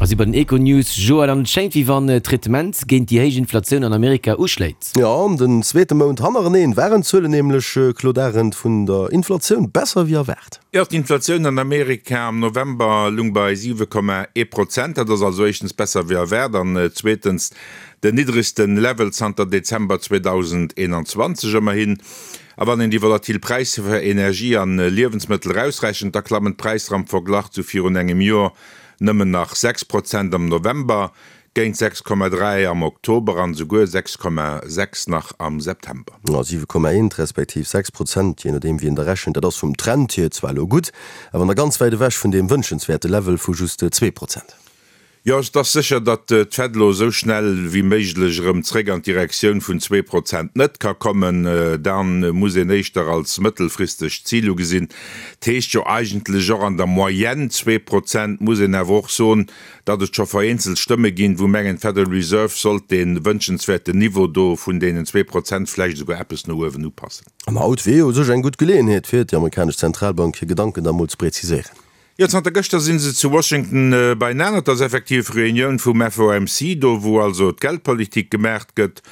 Mer si bei den Econews, Joël, an et schéngt wéi wann d'Traitement géint déi héich Inflatioun an Amerika uschléit. Jo, den zweete Mount hannereneen waren d'Zuelen nämlech, Claude Arend, vun der Inflatioun besser wéi erwaart. Jo, d'Inflatioun an Amerika am November lung bei 7,1 Prozent. Dat ass also éischtens besser wéi erwaart an zweetens den niddregste Level zanter Dezember 2021. Ëmmerhin, a wann een déi volatil Präisser fir Energie an Liewensmëttel erausrechent, da klammen d'Präisser am Verglach zu virun engem Joer nëmmen nach 6 Prozent am November, géint 6,3 am Oktober an esouguer 6,6 nach am September. 7,1 respektiv 6 Prozent, jee nodeem wéi een da rechent. Dat ass vum Trend hier zwar elo gutt, awer nach ganz wäit ewech vun deem wënschenswäerte Level vu just 2 Prozent. Jo, et ass sécher, datt d'Fed elo esou schnell wéi méiglech erëm zréck an d'Direktioun vun 2% net ka kommen. Da muss een éischter als mëttelfristegt Zil ugesinn. Dat heescht jo eigentlech och an der Moyenne 2%. Muss een awer och soen, datt et scho vereenzelt Stëmme ginn, wou mengen, d'Federal Reserve sollt dee wënschenswäerten Niveau do vun deenen 2% vläicht esouguer eppes no uewen upassen. An haut wier jo u sech eng gutt Geleeënheet fir déi amerikanesch Zentralbank hir Gedanken da mol ze präziséieren. Jo, zanter gëschter si se zu Washington beienaner. Et ass effektiv Reunioun vum FOMC, do wou also d'Geldpolitik gemaacht gëtt.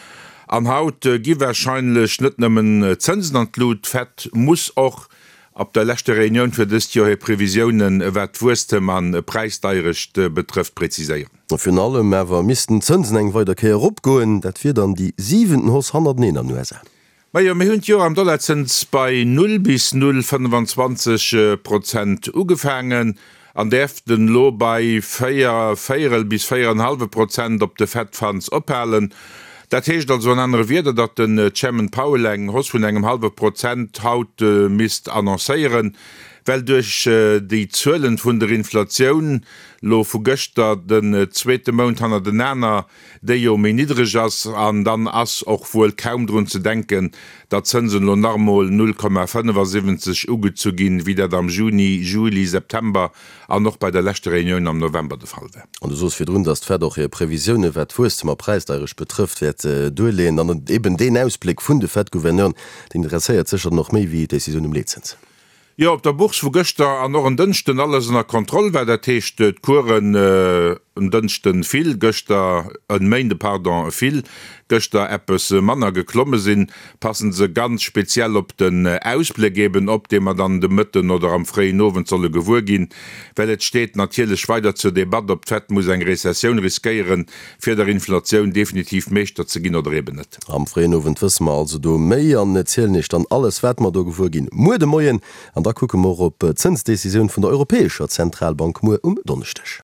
An haut gi warscheinlech net nëmmen d'Zënsen an d'Lut. D'Fed muss och op der leschter Reunioun fir dëst Joer hir Previsiounen, wat d'Wuesstem an Präisdeierecht betrëfft, preziséieren. Virun allem awer missten d'Zënsen eng weider Kéier eropgoen. Dat wier dann déi siwenten Hausse hannerteneen an den USA. Majo, mir hunn d'Joer am Dollarzëns bei 0 bis 0,25 Prozent ugefaangen an däerften elo bei 4 véierel bis 4 en hallwe Prozent op de Fed Funds ophalen. Dat heescht also an anere Wierder, datt den Chairman Powell eng Hausse vun engem hallwe Prozent haut misst annoncéieren, well duerch déi Zuelen vun der Inflatioun lo vu gëschter den zweete Mount hannertenaner déi jo méi niddreg ass, an dann ass och wuel kaum drun ze denken, datt d'Zënsen elo nach emol 0,75 ugezu ginn, wéi dat am Juni, Juli, September an och bei der leschter Reunioun am November de Fall war. An du sos virdrun, datt d'Fed och hir Previsioune wat d'Wuesstem a Präisdeierecht betrëfft, wäert duerleeën. An eben deen Ausbléck vun de Fed-Gouverneuren, deen interesséiert sécher dann och méi wéi d'Decisioun um Leetzëns. Jo, op der Bourse wou gëschter an och en Dënschden alles ënner Kontroll war, dat heescht d'Coursen en Dënschden vill, gëschter, en Méinde pardon, vill, gëschter eppes manner geklomme sinn, passen se ganz speziell op den Ausbléck eben op, dee mer dann de Mëtten oder am fréien Owend solle gewuer ginn, well et steet natierlech weider zur Debatt, ob d'Fed muss eng Rezessioun riskéieren, fir der Inflatioun definitiv Meeschter ze ginn oder eben net. Am fréien Owend wësse mer also do méi an zielen Iech dann alles, wat mer do gewuer ginn, muer de Moien. An da kucke mer och op d'Zënsdecisioun vun der Europäescher Zentralbank muer um Donneschdeg.